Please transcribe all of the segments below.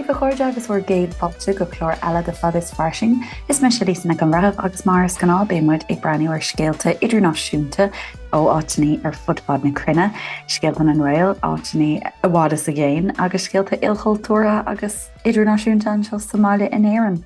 daoibh, a chairde, agus bhur gcéad fáilte go clár eile de Fada is Fairsing. Is mise Lisa Nic an Bhreithimh agus mar is gnáth beidh muid ag breathnú ar scéalta idirnáisiúnta ó áiteanna ar fud fad na cruinne, scéalta na nGael, áiteanna i bhfad is i gcéin agus scéalta ilchultúrtha agus idirnáisiúnta anseo sa mbaile in Éirinn.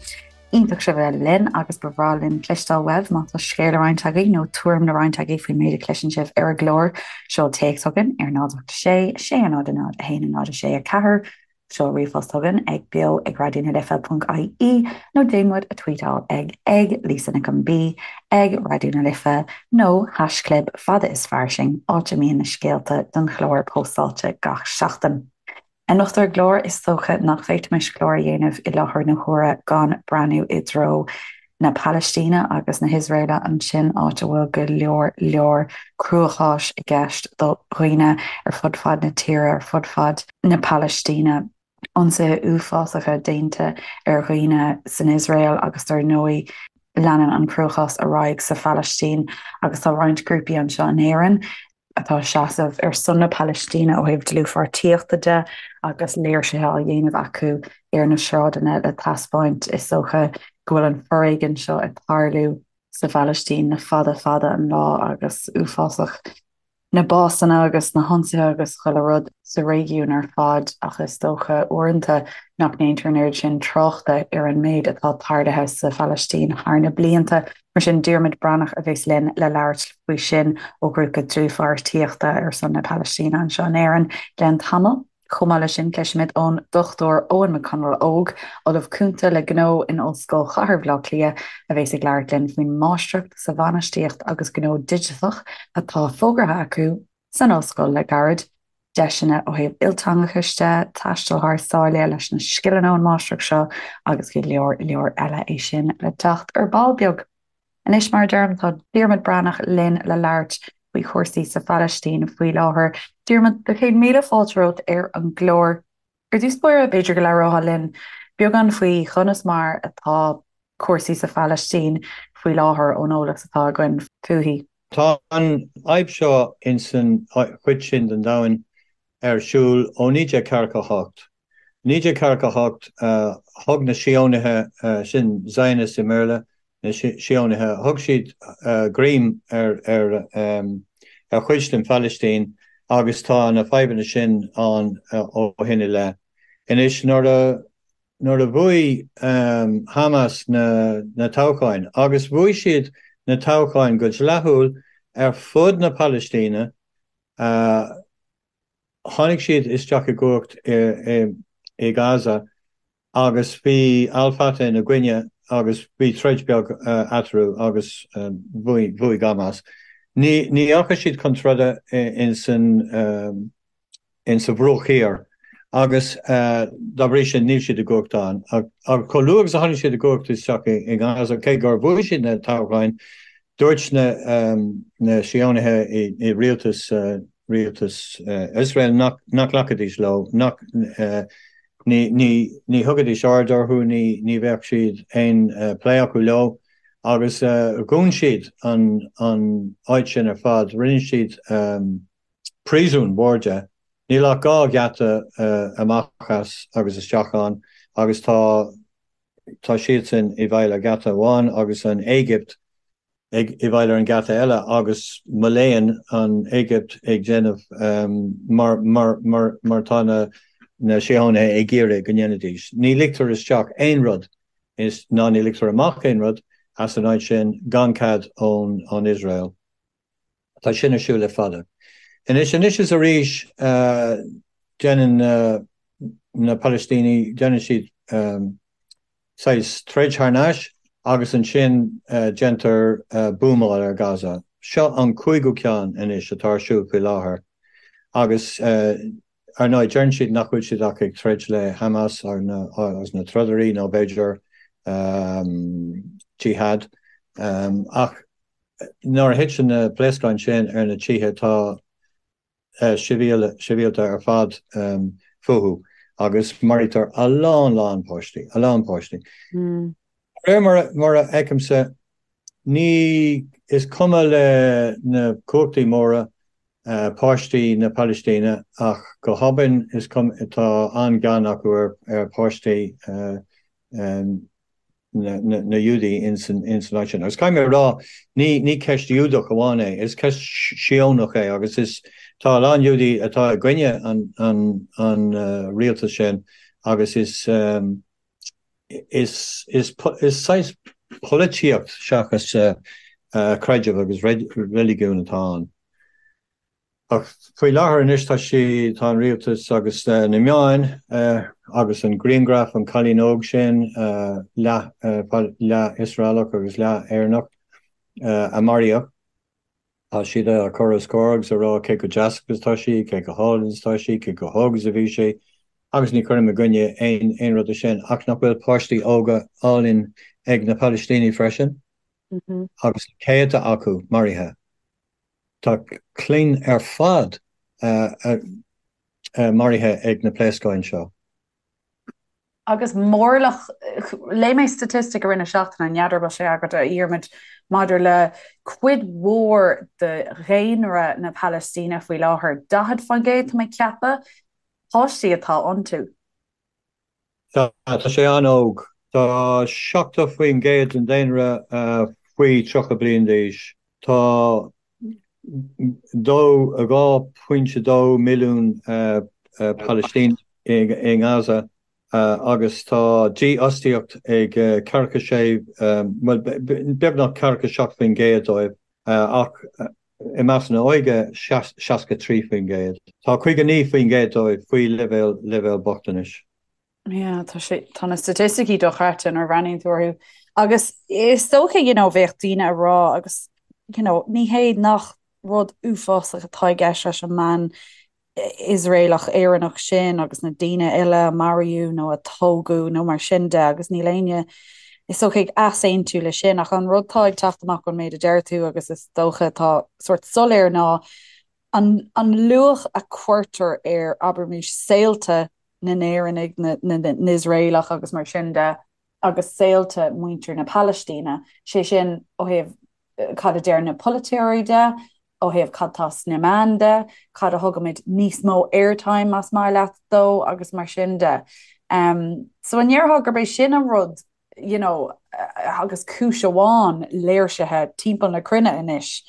Iontach sibh a bheith linn agus ba bhreá linn cloisteáil uaibh má tá scéal le roinnt agaibh nó tuairim le roinnt agaibh faoin méid a chloiseann sibh ar an gclár. Seol téacs chugainn ar 0 8 6 6 0 0 1 0 6 4, seol ríomhphost chugainn ag beo ag raidió na life ponc ie nó déan muid a tweetáil ag ag Lisa Nic an B, ag Raidió na Life nó haischlib fada is fairsing, áit a mbíonn na scéalta don chlár póstáilte gach seachtain. Anocht ar an gclár, is dócha nach bhféadfaimis clár a dhéanamh i láthair na huaire gan breathnú i dtreo na Palaistíne agus na hIosraeile ansin, áit a bhfuil go leor leor cruacháis i gceist do dhaoine ar fud fad na tíre, ar fud fad na Palaistíne. Ionsaithe uafásacha déanta ar dhaoine san Iosrael agus dar ndóigh leanann an cruachás ar aghaidh sa Phalaistín agus tá roinnt grúpaí anseo in Éirinn atá ag seasamh ar son na Palaistíne ó thaobh dlúthpháirtíochta de agus léirsithe á dhéanamh acu ar na sráideanna le taispeáint, is dócha, go bhfuil an foréigean seo ag tarlú sa Phalaistín le fada fada an lá agus uafásach na básanna agus na hionsaithe agus chuile rud sa réigiún ar fad ach is dócha uaireanta nach ndéantar an oiread sin tráchta ar an méid atá tarlaithe sa Phalaistín thar na blianta. Mar sin, Diarmuid Breathnach a bheas linn le labhairt faoi sin ó ghrúpa dlúthpháirtíochta ar son na Palaistíne anseo in Éirinn i gceann tamaill. Chomh maith leis sin, cloisfimid ón Dr Eoin McConalogue, Ollamh Cúnta le Gnó in Ollscoil Chathair Bhaile Átha Cliath, a bheas ag labhairt linn faoin Máistreacht sa Bhainistíocht agus Gnó Digiteach atá fógartha acu san ollscoil le gairid, deiseanna ó thaobh ilteangachais de, taisteal thar sáile leis na scileanna ón Máistreacht seo agus go leor leor eile, é sin le teacht ar ball beag. Anois, mar a deirim, tá Diarmuid Breathnach linn le labhairt faoi chúrsaí sa Phalaistín faoi láthair. Diarmuid, do chéad míle fáilte romhat ar an gclár. Ar dtús báire, b'fhéidir go labhrófá linn beagán faoi chonas mar atá cúrsaí sa Phalaistín faoi láthair ón eolas atá againn fúithi. Tá an fhadhb seo ins an chuid sin den domhan ar siúl ó 1948. 1948, thug na Síónaithe, sin Zionists i mBéarla, na Síónaithe, thug siad greim ar ar chuid den Phalaistín agus tá na fadhbanna sin ann ó shin i leith. Anois, nuair a nuair a bhuaigh Hamas na na toghcháin, agus bhuaigh siad na toghcháin go dleathúil ar fud na Palaistíne, Tháinig siad isteach i gcumhacht i Gaza agus bhí Al Fatah ina gcoinne agus bhí troid beag eatarthu agus bhuaigh Hamas. Ní dheachaigh siad chun troda ins an insa Bhruach Thiar agus dá bhrí sin níl siad i gcumhacht ann. Ach chomh luath agus a tháinig siad i gcumhacht isteach i nGaza, cé gur bhuaigh siad na toghcháin, Dúirt na Síónaithe i rialtas rialtas Iosrael nach nglacfaidís leo, nach ní thugaidís aird orthu, ní bheadh siad aon plé acu leo agus dhún siad an áit sin ar fad. Rinne siad príosún mór de. Níl ach 2 gheata amach as agus isteach ann agus tá Tá siadsan i bhfeighil ar gheata amháin agus an Éigipt i bhfeighil ar an gheata eile agus mo léan an Éigipt ag déanamh mar mar tá na na Síónaithe ag iarraidh go ndéanfaidís. Ní ligtear isteach aon rud is ná ní ligtear amach aon rud as an áit sin gan cead ón ón Iosrael. Tá sin ar siúl le fada. Anois, anois is arís, déanann na Palaistínigh, déanann siad saghas troid thar n-ais agus ansin déantar buamáil ar Gaza. Seo an cúigiú ceann anois atá ar siúl faoi láthair agus ar ndóigh deireann siad nach bhfuil siad ach ag troid le Hamas agus na trodairí nó b'fhéidir Jihad ach Nuair a thiteann na pléascáin sin ar na tithe tá sibhialta ar fad fúthu agus maraítear a lán lán páistí, a lán páistí. De réir mar a fheicimse, ní, is cuma le na cumhachtaí móra. páistí na Palaistíne ach go hobann is cuma tá an-ghean acu ar pháistí na Iúdaí ins an áit sin. Agus caithfidh mé a rá, ní ceist Iúdach amháin é, is ceist Síónach é agus is tá a lán Iúdaí atá i gcoinne an rialtas sin agus is is is saghas polaitíocht seachas creideamh agus reiligiún atá ann. Ach faoi láthair anois tá sí, tá an rialtas agus na meáin agus an grianghraf, an cailín óg sin, leath, leath Iosraelach agus leath Éireannach, a maraíodh, tá siad á cur os comhair agus a rá cé chomh deas agus atá sí, cé chomh hálainn is atá sí, cé chomh hóg is a bhí sí, agus ní chuirim i gcoinne aon, aon rud de sin, ach nach bhfuil páistí óga álainn ag na Palaistínigh freisin? Agus céadta acu maraithe. Tá clainn ar fad maraithe ag na pléascáin seo. Agus mórlach, léigh mé staitistic i rith na seachtaine, n'fheadar an bhfuil sé agat a Dhiarmuid, maidir le cuid mhór de dhaonra na Palaistíne faoi láthair, 40% tá mé ag ceapadh, páistí atá iontu. Tá, tá sé an-óg. Tá 70% den daonra faoi 30 bliain d'aois. Tá 2.2 milliún Palaistíneach i nGaza agus tá dífhostaíocht ag ceathracha sé, bhuel, beagnach 47% dóibh ach i measc na hóige 63%. Tá 59% dóibh faoi leibhéal leibhéal bochtanais. Yeah, tá sé, tá na staitisticí dochreidte nuair a bhreathnaíonn tú orthu. Agus is dócha, you know, bheadh daoine ag rá agus, you know, ní hé nach rud uafásach atá i gceist leis an mbean Iosraelach Éireannach sin agus na daoine eile a maraíodh nó a tógadh nó mar sin de agus níl éinne is dócha ag easaontú le sin ach an rud atá ag teacht amach ón méid a deir tú agus is dócha atá sórt soiléir ná an an luach a cuirtear ar abraimis saolta na nÉireannaigh, na nIosraelach agus mar sin de agus saolta muintir na Palaistíne, sé sin ó thaobh cad a deir na polaiteoirí de, ó thaobh cad tá sna meáin de, cad a thugaimid níos mó airtime más maith leat dó agus mar sin de. So an ndéarfá gurb é sin an rud you know, agus cúis amháin léirsithe timpeall na cruinne anois,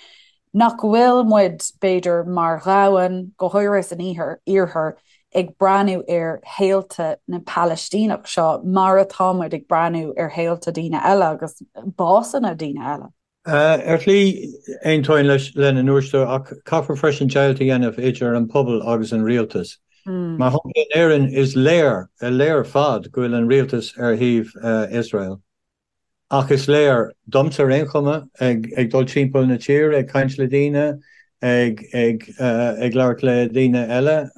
nach bhfuil muid, b'fhéidir, mar dhomhan, go háirithe san iarthar, ag breathnú ar shaolta na Palaistíneach seo mar atá muid ag breathnú ar shaolta daoine eile agus básanna daoine eile. Ar shlí, aontóinn leis lena ndúirt tú, ach caithfear freisin deighilt a dhéanamh idir an pobal agus an rialtas. Mar shampla, in Éirinn, is léir, léir ar fad go bhfuil an rialtas ar thaobh Iosrael. Ach is léir, domsa ar aon chuma, ag dul timpeall na tíre, ag caint le daoine, ag ag labhairt le daoine eile,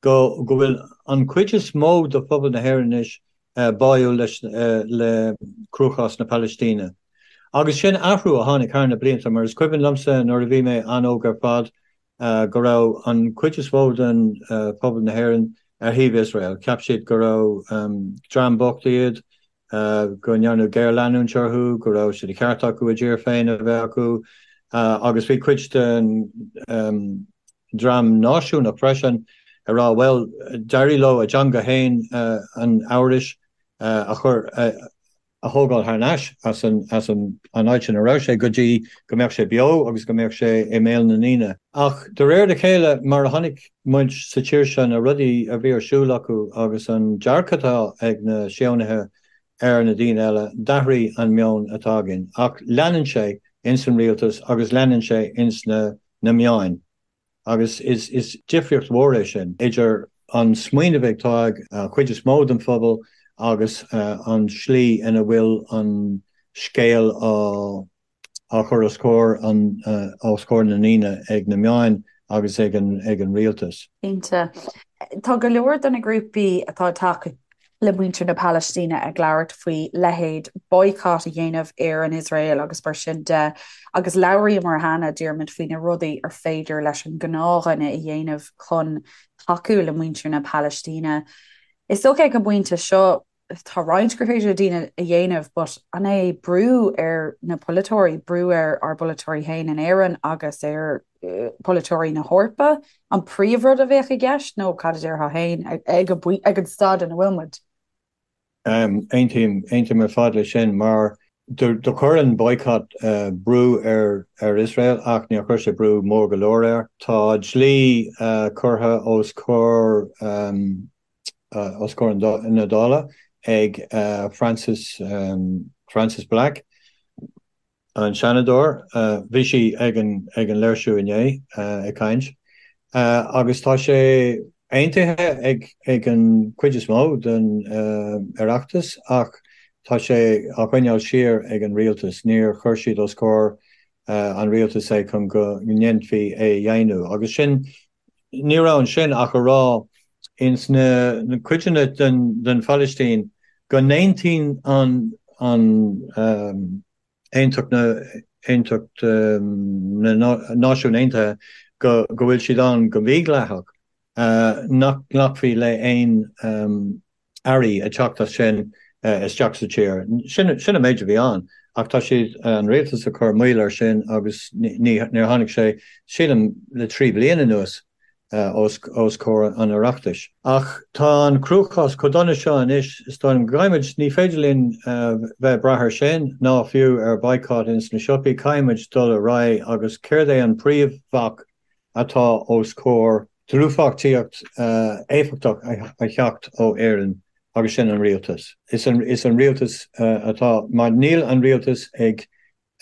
go go bhfuil an chuid is mó de phobal na hÉireann anois báúil leis le cruachás na Palaistíne. Agus sin athrú a tháinig thar na blianta, mar is cuimhin liomsa nuair a bhí mé an-óg ar fad go raibh an chuid is mó den phobal na hÉireann ar thaobh Iosrael. Cheap siad go raibh dream bocht iad, go ndearnadh géarleanúint orthu, go raibh sé de cheart acu a dtír féin a bheith acu agus bhí cuid den dream náisiúnach freisin ag rá bhuel, d'éirigh leo a dteanga féin, an Eabhrais, a chur, a thógáil thar n-ais as an as an áit ina raibh sé go dtí go mbeadh sé beo agus go mbeadh sé i mbéal na ndaoine. Ach de réir a chéile, mar a chonaic muid sa tír seo na rudaí a bhí ar siúl acu agus an dearcadh atá ag na Síónaithe ar na daoine eile, d'athraigh an meon atá againn. Ach leanann sé ins an rialtas agus leanann sé ins na na meáin. Agus is difríocht mhór é sin idir an smaoineamh atá ag an chuid is mó den phobal agus an slí ina bhfuil an scéal á chur os comhair os comhair na ndaoine ag na meáin agus ag an rialtas. Cinnte. Tá go leor de na grúpaí atá ag tacú le muintir na Palaistíne ag labhairt faoi leithéid boycott a dhéanamh ar an Iosrael agus mar sin de agus labhraíomar cheana, Diarmuid, faoi na rudaí ar féidir leis an ngnáthdhuine a dhéanamh chun tacú le muintir na Palaistíne. Is dócha ag an bpointe seo. tá roinnt gur féidir le daoine a dhéanamh but an é brú ar na polaiteoirí, brú ar ár bpolaiteoirí féin in Éirinn agus ar pholaiteoirí na hEorpa an príomhrud a bheadh i gceist nó cad a déarfá féin ag an staid ina bhfuil muid? Aontaím, aontaím ar fad leis sin mar do chuir an boycott brú ar Iosrael ach níor chuir sé brú mór go leor air. Tá dlí curtha os comhair os comhair na Dála ag Frances Frances Black, An Seanadóir, bhí sí ag an ag an léirsiú inné ag caint agus tá sé aontaithe ag ag an cuid is mó den Oireachtas ach tá sé á choinneáil siar ag an rialtas. Níor chuir siad os comhair an rialtais é chun go ndéanfaí é a dheimhniú agus sin ní raibh ansin ach a rá ins na cuideanna den den Phalaistín go n-aontaíonn an an Aontacht na Aontacht na Náisiún Aontaithe go go bhfuil siad ann go mídhleathach, nach nglacfaí le aon earraí ag teacht as sin isteach sa tír. Sin sin an méid a bhí ann ach tá siad, an rialtas ag cur moill air sin agus ní níor tháinig sé, sílim, le 3 bliana anuas. os comhair an Oireachtais. Ach tá an cruachás chomh dona seo anois, is dóigh liom, go gcaithfimid, ní féidir linn bheith ag brath air sin, ná fiú ar boycott ins na siopaí, caithfimid dul ar aghaidh agus céard é an príomhbhac atá os comhair dlúthpháirtíocht éifeachtach a theacht ó Éirinn agus sin an rialtas. Is an rialtas atá, mar níl an rialtas ag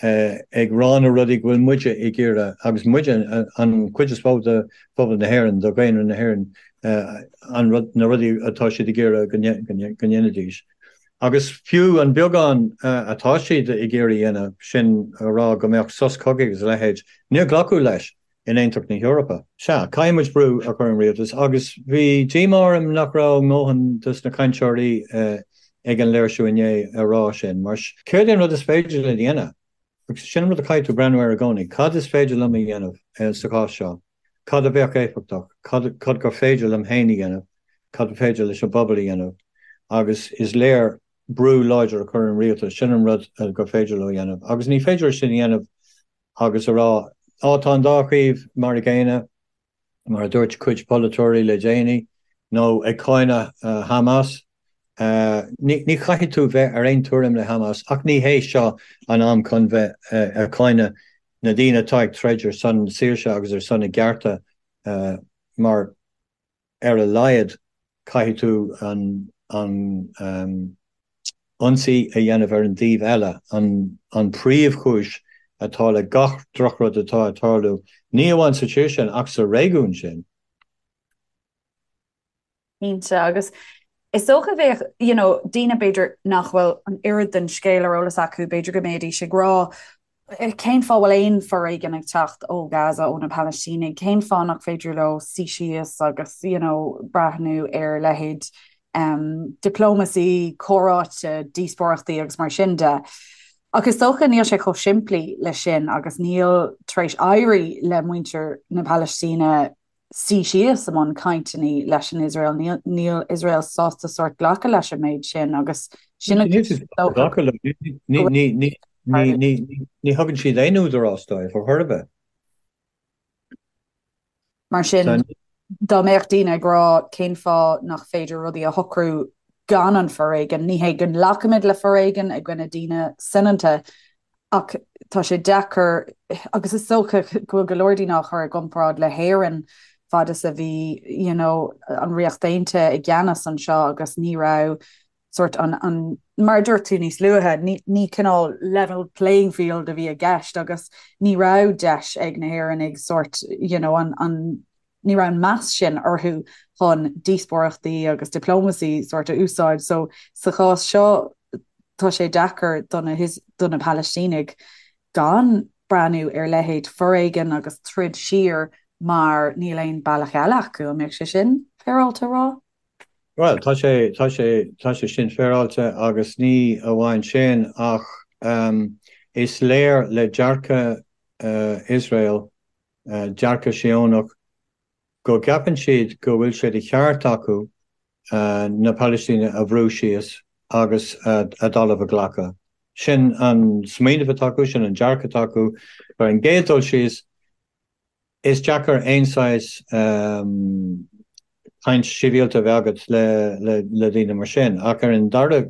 ag rá na rudaí go bhfuil muide ag iarraidh, agus muide, an chuid is mó de phobal na hÉireann, de dhaonra na hÉireann, an rud, na rudaí atá siad ag iarraidh go ndéanfaidís. Agus fiú an beagán atá siad ag iarraidh a dhéanamh, sin a rá go mbeadh sos cogaidh agus a leithéid, níor glacadh leis in Aontacht na hEorpa. Sea, caithfidh muid brú a chur ar an rialtas agus bhí díomá orm nach raibh a ndóthain dos na cainteoirí ag an léirsiú inné a rá sin, mar céard é an rud is féidir linn a dhéanamh? Agus sin an rud a chaithfidh tú breathnú air i gcónaí, cad is féidir liom a dhéanamh sa chás seo? Cad a bheadh éifeachtach? Cad cad gur féidir liom féin a dhéanamh? Cad ba féidir leis an bpobal a dhéanamh? Agus is léir brú láidir a chur ar an rialtas, sin an rud gur féidir leo a dhéanamh. Agus ní féidir sin a dhéanamh agus a rá, Á, tá an dá thaobh mar a gcéanna, mar a dúirt cuid polaiteoirí le déanaí, nó ag cáineadh Hamas. Ní chaithfidh tú bheith ar aon tuairim le Hamas, ach ní hé seo an am chun bheith ag cáineadh na daoine atá ag troid ar son saoirse agus ar son a gcearta, mar. ar a laghad caithfidh tú an an ionsaí a dhéanamh ar an dtaobh eile, an an príomhchúis atá le gach drochrud atá ag tarlú, ní amháin sa tír sin ach sa réigiún sin. Cinnte, agus is dócha bheadh, you know, daoine b'fhéidir nach bhfuil an oiread den scéal ar eolas acu, b'fhéidir go mbeidís ag rá, Cén fáth bhfuil aon foréigean ag teacht ó Gaza, ó na Palaistínigh? Cén fáth nach féidir leo suí síos agus you know breathnú ar leithéid um, diplomacy, comhráite, díospóireachtaí agus mar sin de? Ach is dócha níl sé chomh simplí le sin agus níl tar éis éirí le muintir na Palaistíne suí síos i mbun cainteanna leis an Iosrael. Níl, níl Iosrael sásta sórt glacadh leis an méid sin agus sin Níl siad sásta glacadh leo. Ní, ní, ní, ní, ní, ní thugann siad aon údarás dóibh ar chor ar bith. Mar sin, dá mbeadh daoine ag rá cén fáth nach féidir rudaí a shocrú gan an foréigean, ní hé go nglacaimid le foréigean i gcoinne daoine soineanta, Ach tá sé deacair, agus is dócha go bhfuil go leor daoine á chur i gcomparáid le hÉirinn fad is a bhí you know, an Ríocht Aontaithe i gceannas anseo agus ní raibh sort an, an, mar a dúirt tú níos luaithe, ní, ní cineál level playing field a bhí i gceist agus ní raibh deis ag na hÉireannaigh sort you know, an, an ní raibh an meas sin orthu chun díospóireachtaí agus diplomacy sort a úsáid. So sa chás seo tá sé deacair do na do na Palaistínigh gan breathnú ar leithéid foréigean agus troid siar mar níl aon bealach eile acu. An mbeadh sé sin féaráilte a rá? Bhuel, tá sé, tá sé, tá sé sin féaráilte agus ní amháin sin ach um, is léir le dearcadh uh, Iosrael dearcadh Síónach go gceapann siad go bhfuil sé de cheart acu na Palaistínigh a bhrú síos. agus a dtalamh a ghlacadh. Sin an smaoineamh atá acu, sin an dearcadh atá acu. Ar an gcéad dul síos, is deacair aon saghas caint shibhialta a bheith agat le daoine mar sin. Ach ar an dara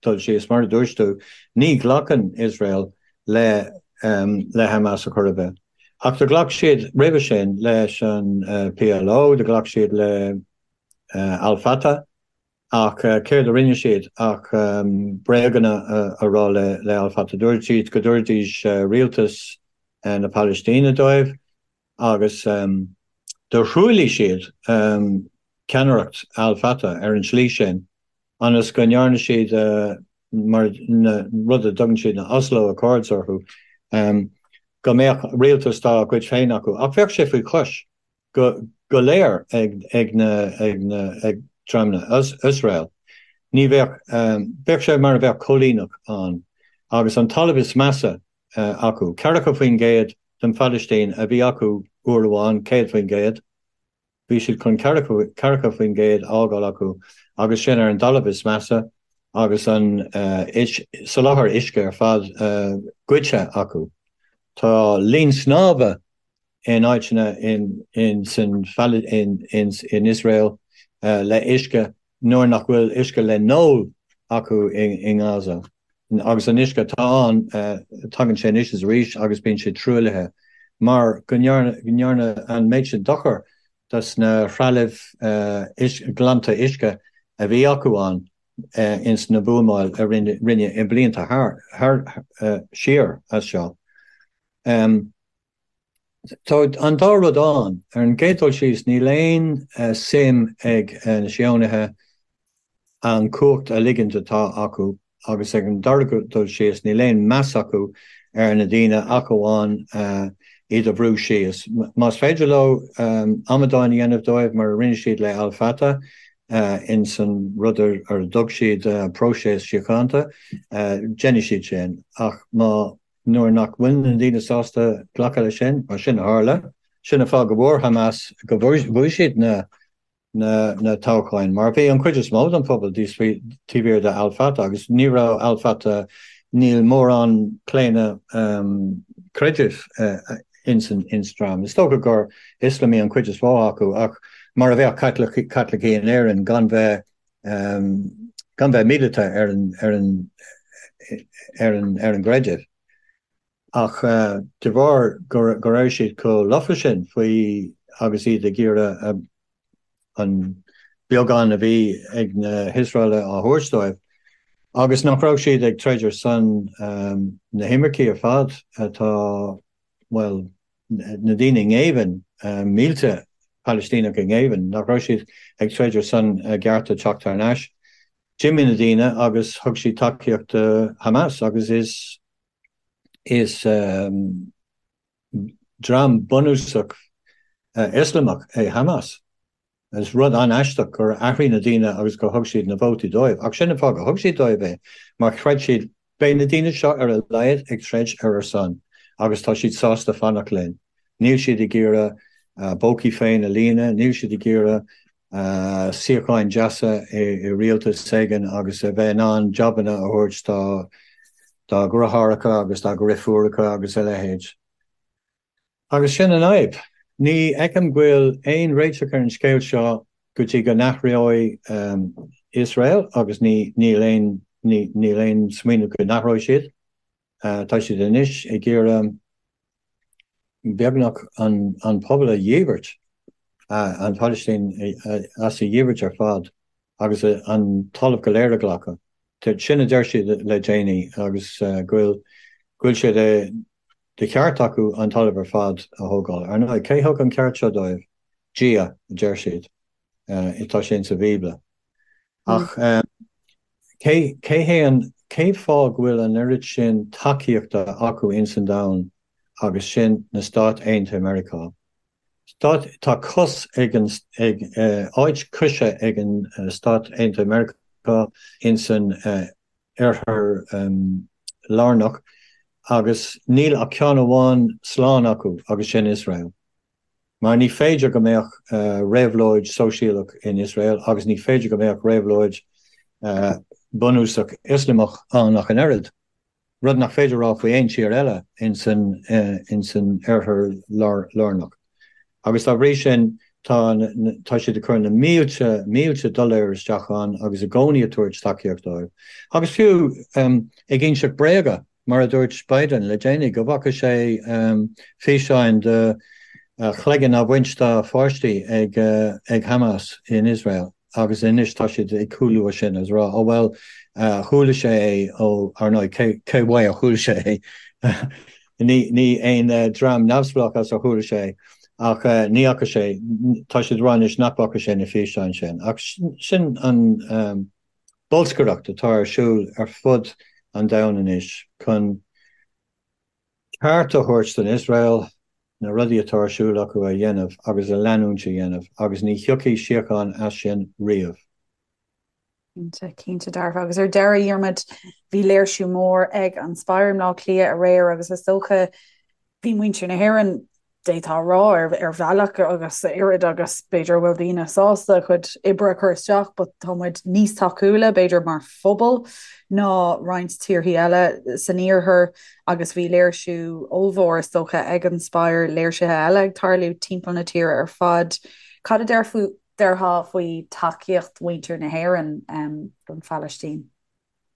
dul síos, mar a dúirt tú, ní ghlacann Iosrael le le Hamas ar chor ar bith. Ach do ghlac siad roimhe sin leis an PLO, do ghlac siad le Al Fatah. Ach céard a rinne siad ach bréaganna a rá le Al Fatah. Dúirt siad go dtabharfaidís rialtas na Palaistíne dóibh agus do thruailligh siad ceannaireacht Al Fatah ar an tslí sin ionas go ndearna siad mar na rud a dtugann siad na Oslo Accords orthu, go mbeadh rialtas dá gcuid féin acu. Ach bheadh sé faoi chois. go go léir ag ag na ag na ag dream na Iosrael. Ní bheadh bheadh sé mar a bheadh coilíneach ann agus an talamh is measa acu. 40% den Phalaistín a bhí acu uair amháin, 100%. Bhí siad chun 40% a fhágáil acu agus sin ar an dtalamh is measa agus an soláthar uisce ar fad goidte acu. Tá linn snámha in áiteanna in san in Iosrael le uisce nuair nach bhfuil uisce le n-ól acu i nGaza. Agus an uisce atá ann, tagann sé anois is arís agus bíonn sé truaillithe mar go ndearnadh an méid sin dochar dos na threalaimh glanta uisce a bhí acu ann ins na buamáil a rinneadh i blianta thar siar as seo. Tá an dá rud ann. Ar an gcéad dul síos, níl aon suim ag na Síónaithe an cumhacht a ligint atá acu agus ag an dara dul síos, níl aon meas acu ar na daoine ach amháin iad a bhrú síos. Más féidir leo amadáin a dhéanamh dóibh mar a rinne siad le Al Fatah ins an rud ar a dtug siad próiseas síochánta, déanfaidh siad sin. Ach má. Nuair nach bhfuil na daoine sásta glacadh leis sin, mar sin a tharla, sin an fáth go bhfuair Hamas, go bhuaigh siad na na toghcháin, mar bhí an chuid is mó den phobal taobh thiar de Al Fatah agus ní raibh Al Fatah, níl mórán claonadh creidimh ins an dream. Is dócha gur Ioslamaigh an chuid is mó acu ach mar a bheadh Caitlicigh in Éirinn gan bheith gan bheith míleata ar an ar an ar an ar an gcreideamh. Ach de bharr go go raibh siad chomh lofa sin faoi agus iad ag iarraidh an beagán a bhí ag na hIosraelaigh á thabhairt dóibh, agus nach raibh siad ag troid ar son na himircigh ar fad atá, bhuel, na daoine i ngéibheann, mílte Palaistíneach i ngéibheann, nach raibh siad ag troid ar son a gcearta teacht thar n-ais. D'imigh na daoine agus thug siad tacaíocht do Hamas agus is is dream bunúsach Ioslamach é Hamas. Is rud an-aisteach gur athraigh na daoine agus gur thug siad na vótaí dóibh. Ach sin an fáth gur thug siad dóibh é, mar chreid siad, beidh na daoine seo ar a laghad ag troid ar ár son agus tá siad sásta fanacht linn. Níl siad ag iarraidh a bpócaí féin a líonadh, níl siad ag iarraidh suíocháin deasa i rialtas éigin agus a bheith in ann jabanna a thabhairt dá dheartháireacha agus dá ndriofúracha agus a leithéid. Agus sin an fhadhb. Ní fheicim go bhfuil aon réiteach ar an scéal seo go dtí go n-athróidh Iosrael agus ní níl aon níl aon smaoineamh go n-athróidh siad. Tá siad anois ag iarraidh beagnach an an pobal a dhíbirt, an Phalaistín as a dhíbirt ar fad agus an talamh go léir a ghlacadh. Sin a deir siad le déanaí agus go bhfuil go bhfuil sé de De cheart acu an talamh ar fad a thógáil. Ar ndóigh, cé thug an ceart seo dóibh? Dia, a deir siad. Tá sé insa Bhíobla. Ach cé, cé hé an, cé fáth go bhfuil an oiread sin tacaíochta acu ins an domhan agus sin na Stáit Aontaithe Meiriceá? Stát, tá cos ag an, ag, áit coise ag an Stáit Aontaithe Meiriceá ins an Oirthear Lárnach agus níl ach ceann amháin slán acu agus sin Iosrael. Mar ní féidir go mbeadh réabhlóid sóisialach in Iosrael agus ní féidir go mbeadh réabhlóid. bunúsach Ioslamach ann ach an oiread, rud nach féidir a rá faoi aon tír eile ins an Oirthear Lárnach. Agus dá bhrí sin tá tá siad ag cur na mílte, mílte dollar isteach ann agus i gcónaí ag tabhairt tacaíocht dóibh. Agus fiú ag inseacht bréaga, mar a dúirt Biden le déanaí, go bhfaca sé físeáin de chloigeann á bhaint dá pháistí ag Hamas in Iosrael. Agus anois tá siad ag cúlú as sin agus ag rá, oh bhuel, chuala sé é ó, ar ndóigh, cé cé uaidh a chuala sé é? Ní ní aon dream neamhspleách as ar chuala sé é. Ach ní fhaca sé, tá siad ag rá anois nach bhfaca sé na físeáin sin. Ach sin an bolscaireacht atá ar siúl ar fud an domhain anois chun ceart a thabhairt don Iosrael na rudaí atá ar siúl acu a dhéanamh agus a leanúint a dhéanamh agus ní thiocfaidh síocháin as sin riamh. Cinnte, cinnte dearfa. Agus ar deireadh, a Dhiarmuid, bhí léirsiú mór ag an Spire i mBleá Cliath aréir agus is dócha bhí muintir na hÉireann, d'fhéadfá a rá, ar bhealach agus oiread agus b'fhéidir a bhfuil daoine sásta a chuid oibre a chur isteach but tá muid níos tacúla b'fhéidir mar phobal ná roinnt tíorthaí eile san iarthar agus bhí léirsiú ollmhór is dócha ag an Spire, léirsithe eile ag tarlú timpeall na tíre ar fad. Cad a déarfá faoi tacaíocht mhuintir na hÉireann don Phalaistín?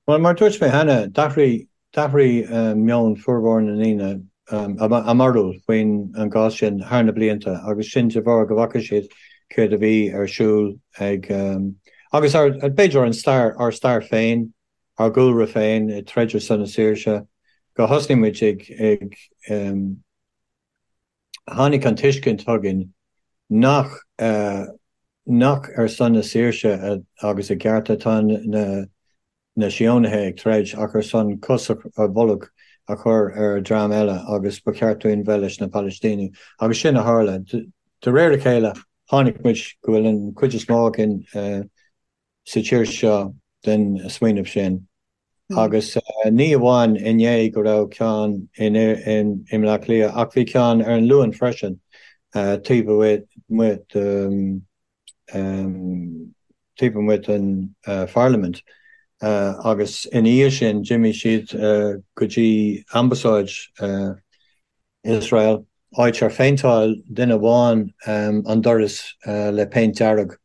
Bhuel, mar a dúirt mé cheana, d'athraigh, d'athraigh meon formhór na ndaoine, a mbarúil faoin an gcás sin thar na blianta agus sin de bharr go bhfaca siad céard a bhí ar siúl ag, agus ár, b'fhéidir an stair, ár stair féin, ár gcúlra féin ag troid ar son na saoirse, go thosnaigh muid ag, ag, tháinig an tuiscint chugainn nach nach ar son na saoirse agus a gcearta atá na na Síónaithe ag troid ach ar son cos ar bolg a chur ar dhream eile agus ba cheart dúinn bheith leis na Palaistínigh. Agus sin a tharla. De réir a chéile tháinig muid go bhfuil an chuid is mó againn sa tír seo den smaoineamh sin. Agus ní amháin inné go raibh ceann i mBleá Cliath ach bhí ceann ar an Luan freisin taobh amuigh de taobh amuigh den Pharlaimint agus ina dhiaidh sin d'imigh siad go dtí Ambasáid Iosrael, áit ar phéinteáil duine amháin an doras le péint dearg.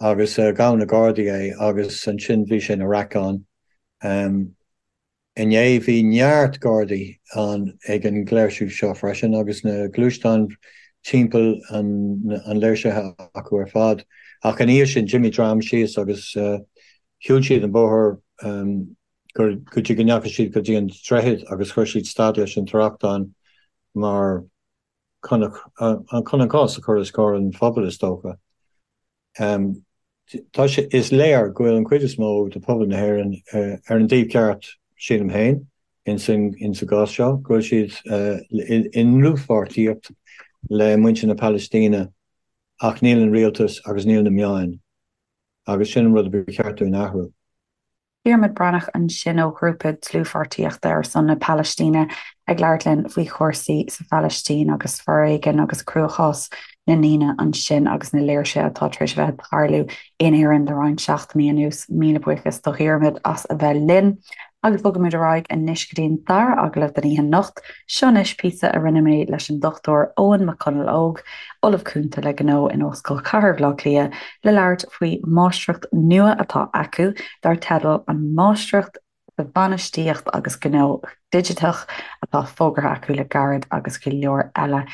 Agus ghabh na Gardaí é agus ansin bhí sé ina raic ann. Inné bhí neart Gardaí ann ag an léirsiú seo freisin agus na gluaisteáin timpeall an léirsithe acu ar fad. Ach ina dhiaidh sin d'imigh dream síos agus shiúil siad an bóthar go dtí go ndeachaigh siad go dtí an droichead agus chuir siad stad leis an trácht mar chun an cás a chur os comhair an phobail, is dócha. Tá sé, is léir go bhfuil an chuid is mó de phobal na hÉireann ar an dtaobh ceart, sílim féin, ins an gcás seo, go bhfuil siad i ndlúthpháirtíocht le muintir na Palaistíne ach níl an rialtas agus níl na meáin agus sin an rud a ba cheart dúinn a athrú. Diarmuid Breathnach ansin ó ghrúpa dlúthpháirtíochta ar son na Palaistíne ag labhairt linn faoi chúrsaí sa Phalaistín agus foréigean agus cruachás na ndaoine ansin agus na léirsithe atá tar éis a bheith ag tarlú in Éirinn le roinnt seachtainí anuas. Míle buíochas do Dhiarmuid as a bheith linn. Agus bogaimid ar aghaidh anois go dtí an dara agallamh den oíche anocht. Seo anois píosa a rinne mé leis an Dr Eoin Mac Conaill Óg, Ollamh Cúnta le Gnó in Ollscoil Chathair Bhaile Átha Cliath, le labhairt faoi mháistreacht nua atá acu dar teideal an Máistreacht sa Bhainistíocht agus Gnó Digiteach atá fógartha acu le gairid agus go leor eile.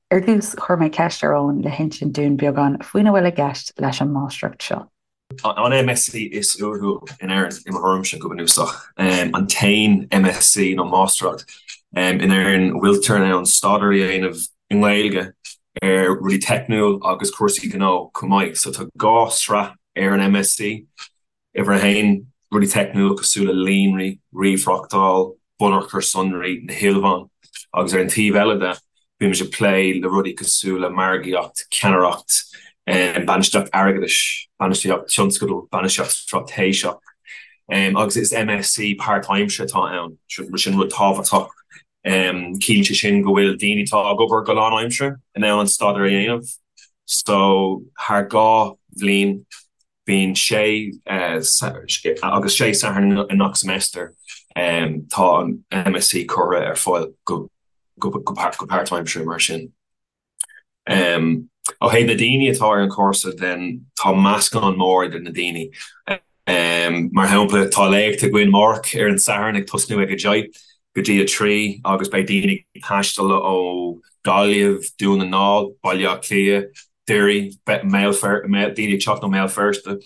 Ar dtús, chuir mé ceist ar Eoin le hinsint dúinn beagán faoina bhfuil i gceist leis an máistreacht seo. An MSc is uathúil in Éirinn, i mo thuairimse, go bunúsach. An t-aon MSc nó Máistreacht in Éirinn a bhfuiltear in ann staidéar a dhéanamh i nGaeilge ar rudaí teicniúil agus cúrsaí gnó chomh maith. So tá 2 sraith ar an MSc. Uimhir a haon, rudaí teicniúil cosúil le líonraí, ríomhthráchtáil, bunachair sonraí, na hilmheáin, agus ar an taobh eile de, bímid ag plé le rudaí cosúil le margaíocht, ceannaireacht, bainistíocht airgeadais, bainistíocht tionscadal, bainistíocht straitéiseach, agus is MSc páirtaimseartha atá ann, sin rud tábhachtach. Ciallaíonn sé sin go bhfuil daoine atá ag obair go lánaimseartha in ann an staidéar a dhéanamh, so thar 2 bhliain. Bíonn sé agus sé Satharn i ngach semester tá an MSc curtha ar fáil go páirtaimseartha mar sin. Ó thaobh na daoine atá ar an chúrsa then tá meascán mór idir na daoine. Mar shampla tá léacht againn amárach ar an Satharn ag tosnú ag 10 go dtí 3 agus beidh daoine ag taisteal ó Gaillimh, Dún na nGall, Baile Átha Cliath, Doire, daoine ag teacht ó Mbéal Feirste,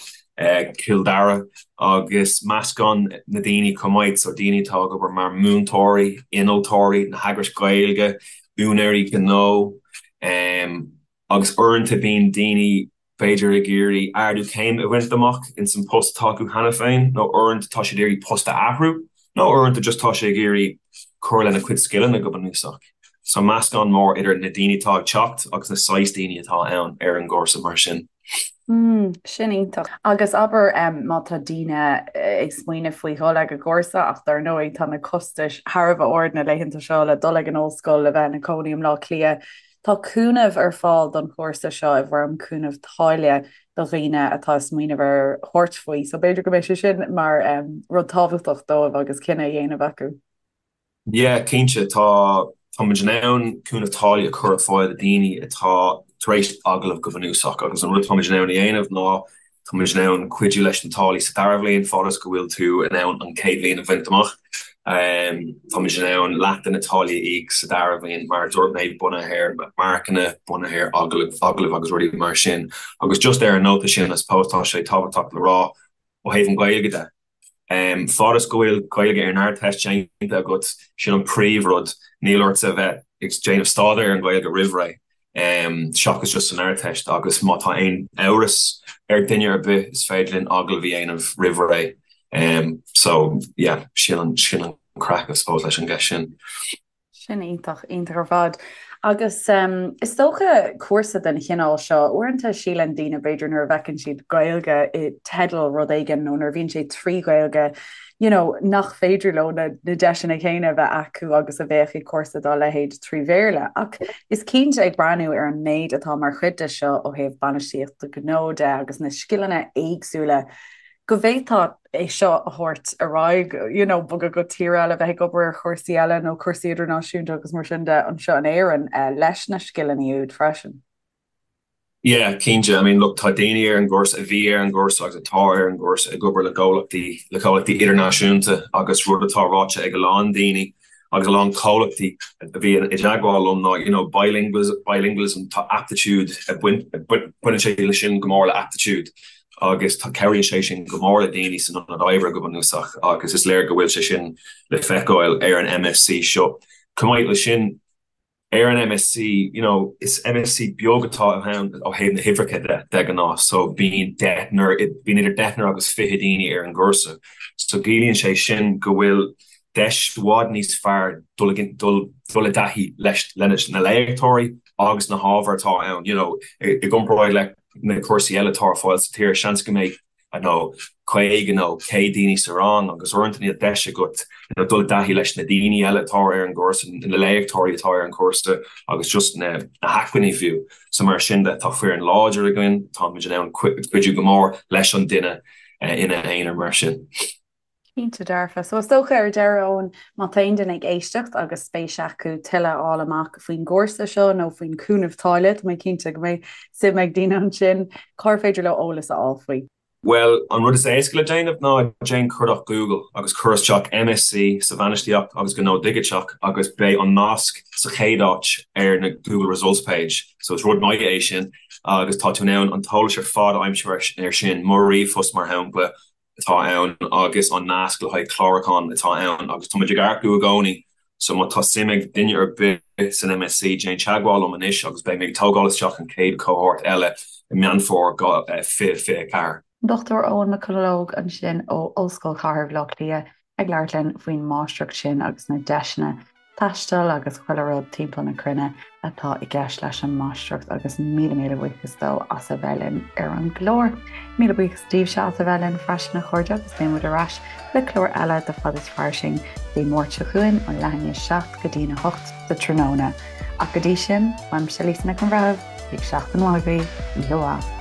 Cill Dara agus meascán na daoine chomh maith, so daoine atá ag obair mar múinteoirí, innealtóirí, na heagrais Ghaeilge, úinéirí gnó agus uaireanta bíonn daoine b'fhéidir ag iarraidh ardú céime a bhaint amach ins an post atá acu cheana féin nó uaireanta tá siad ag iarraidh post a athrú nó uaireanta just tá sé ag iarraidh cur lena cuid scileanna go bunúsach. So meascán mór idir na daoine atá ag teacht agus na saghas daoine atá ann ar an gcúrsa mar sin. Mm, sin iontach. Agus abair má tá daoine ag smaoineamh faoi dhul ag an gcúrsa ach dar ndóigh tá na costais thar a bheith ard na laethanta seo le dul ag an ollscoil, le bheith ina cónaí i mBleá Cliath. Tá cúnamh ar fáil don chúrsa seo i bhfoirm cúnamh táille do dhaoine atá ag smaoineamh ar thabhairt faoi, so b'fhéidir go mbeidh sé sin mar rud tábhachtach dóibh agus cinneadh a dhéanamh acu. Yeah, cinnte, tá tá muid in ann cúnamh táille a chur ar fáil do daoine atá tar éis agallamh go bunúsach agus an rud atá muid in ann a dhéanamh ná Tá muid in ann cuidiú leis na táillí sa dara bhliain, fad is go bhfuil tú in ann an chéad bhliain a bhaint amach. Tá muid in ann leath de na táillí a íoc sa dara bhliain, mar a dúirt mé, bunaithe ar marcanna, bunaithe ar agallaimh agus rudaí mar sin. Agus just ar an nóta sin, I suppose tá sé tábhachtach le rá ó thaobh an Ghaeilge de, Fad is go bhfuil Gaeilge ar an Ardteist déanta agat, sin an príomhrud. Níl ort a bheith ag déanamh staidéar ar an Ghaeilge roimh ré, seachas just san Ardteist, agus má tá aon amhras ar duine ar bith, is féidir linn agallamh a dhéanamh roimh ré. So, yeah, sin an craic, I suppose, leis an gceist sin. Sin iontach, iontach ar fad. Agus is dócha cúrsa den chineál seo, uaireanta síleann daoine b'fhéidir nuair a bhfeiceann siad Gaeilge i dteideal rud éigin nó nuair a bhíonn sé trí Ghaeilge, you know, nach féidir leo na deiseanna céanna a bheith acu agus a bheadh ag cúrsa dá leithéid trí Bhéarla. Ach is cinnte ag breathnú ar an méid atá mar chuid de seo ó thaobh bainistíochta gnó de agus na scileanna éagsúla go bhféadfá é seo a thabhairt ar aghaidh, you know, bogadh go tír eile, bheith ag obair ar chúrsaí eile nó cúrsaí idirnáisiúnta agus mar sin de anseo in Éirinn leis na scileanna úd freisin. Yeah, cinnte. I mean, look, tá daoine ar an gcúrsa, a bhí ar an gcúrsa agus atá ar an gcúrsa ag obair le comhlachtaí, le comhlachtaí idirnáisiúnta agus rud atá ráite ag a lán daoine agus a lán comhlachtaí a bhí i dteagmháil liom ná, you know, bilingualism, tá aptitude, baineann sé leis sin go mór le aptitude. agus tá cabhraíonn sé sin go mór le daoine san ionad oibre go bunúsach agus is léir go bhfuil sé sin le feiceáil ar an MSc seo. Chomh maith leis sin, ar an MSc, you know, is MSc beag atá ann ó thaobh na huimhreacha de, de ghnáth, so bíonn deichniúr, bíonn idir deichniúr agus 20 daoine ar an gcúrsa. So ciallaíonn sé sin go bhfuil deis i bhfad níos fearr dul, dul, dul i dtaithí leis, leis na léachtóirí agus na hábhair atá ann, you know, i gcomparáid le na cúrsaí eile atá ar fáil sa tír, seans go mbeidh, I don't know, 50 nó 100 daoine sa rang agus uaireanta níl deis agat you know, dul i dtaithí leis na daoine eile atá ar an gcúrsa, na léachtóirí atá ar an gcúrsa agus just na hacmhainní fiú. So mar sin de, tá foireann láidir againn, táimid in ann cuidiú go mór leis an duine ina aonar mar sin. Cinnte dearfa. So is dócha ar deireadh, Eoin, má tá aon duine ag éisteacht agus spéis acu tuilleadh a fháil amach faoin gcúrsa seo nó faoin chúnamh táille, tá mé cinnte go mbeidh suim ag daoine ansin, cár féidir leo eolas a fháil faoi? Bhuel, an rud is éasca le déanamh ná déan cuardach Google agus cuir isteach MSc sa Bhainistíocht agus Gnó Digiteach agus beidh an nasc sa chéad áit ar na Google Results page. So is rud maith é sin agus tá tú in ann an t-eolas ar fad a aimsiú ar sin, mo ríomhphost mar shampla, atá ann agus an nasc le haghaidh clárúcháin atá ann agus táimid ag earcú i gcónaí so má tá suim ag duine ar bith san MSc déan teagmháil liom anois agus beidh mé ag tógáil isteach an chéad cohort eile i Meán Fómhair 2024. Dr Eoin McConalogue ansin ó Ollscoil Chathair Bhaile Átha Cliath ag labhairt linn faoin máistreacht sin agus na deiseanna taistil agus chuile rud timpeall na cruinne atá i gceist leis an máistreacht agus míle míle buíochas dó as a bheith linn ar an gclár. Míle buíochas daoibhse as a bheith linn freisin a chairde agus beidh muid ar ais le clár eile de Fad is Fairsing Dé Máirt seo chugainn ó leath i ndiaidh 7 go dtí'n 8 sa tráthnóna. Ach go dtí sin, uaimse Lisa Nic an Bhreithimh, bíodh seachtain mhaith agaibh, oíche mhaith.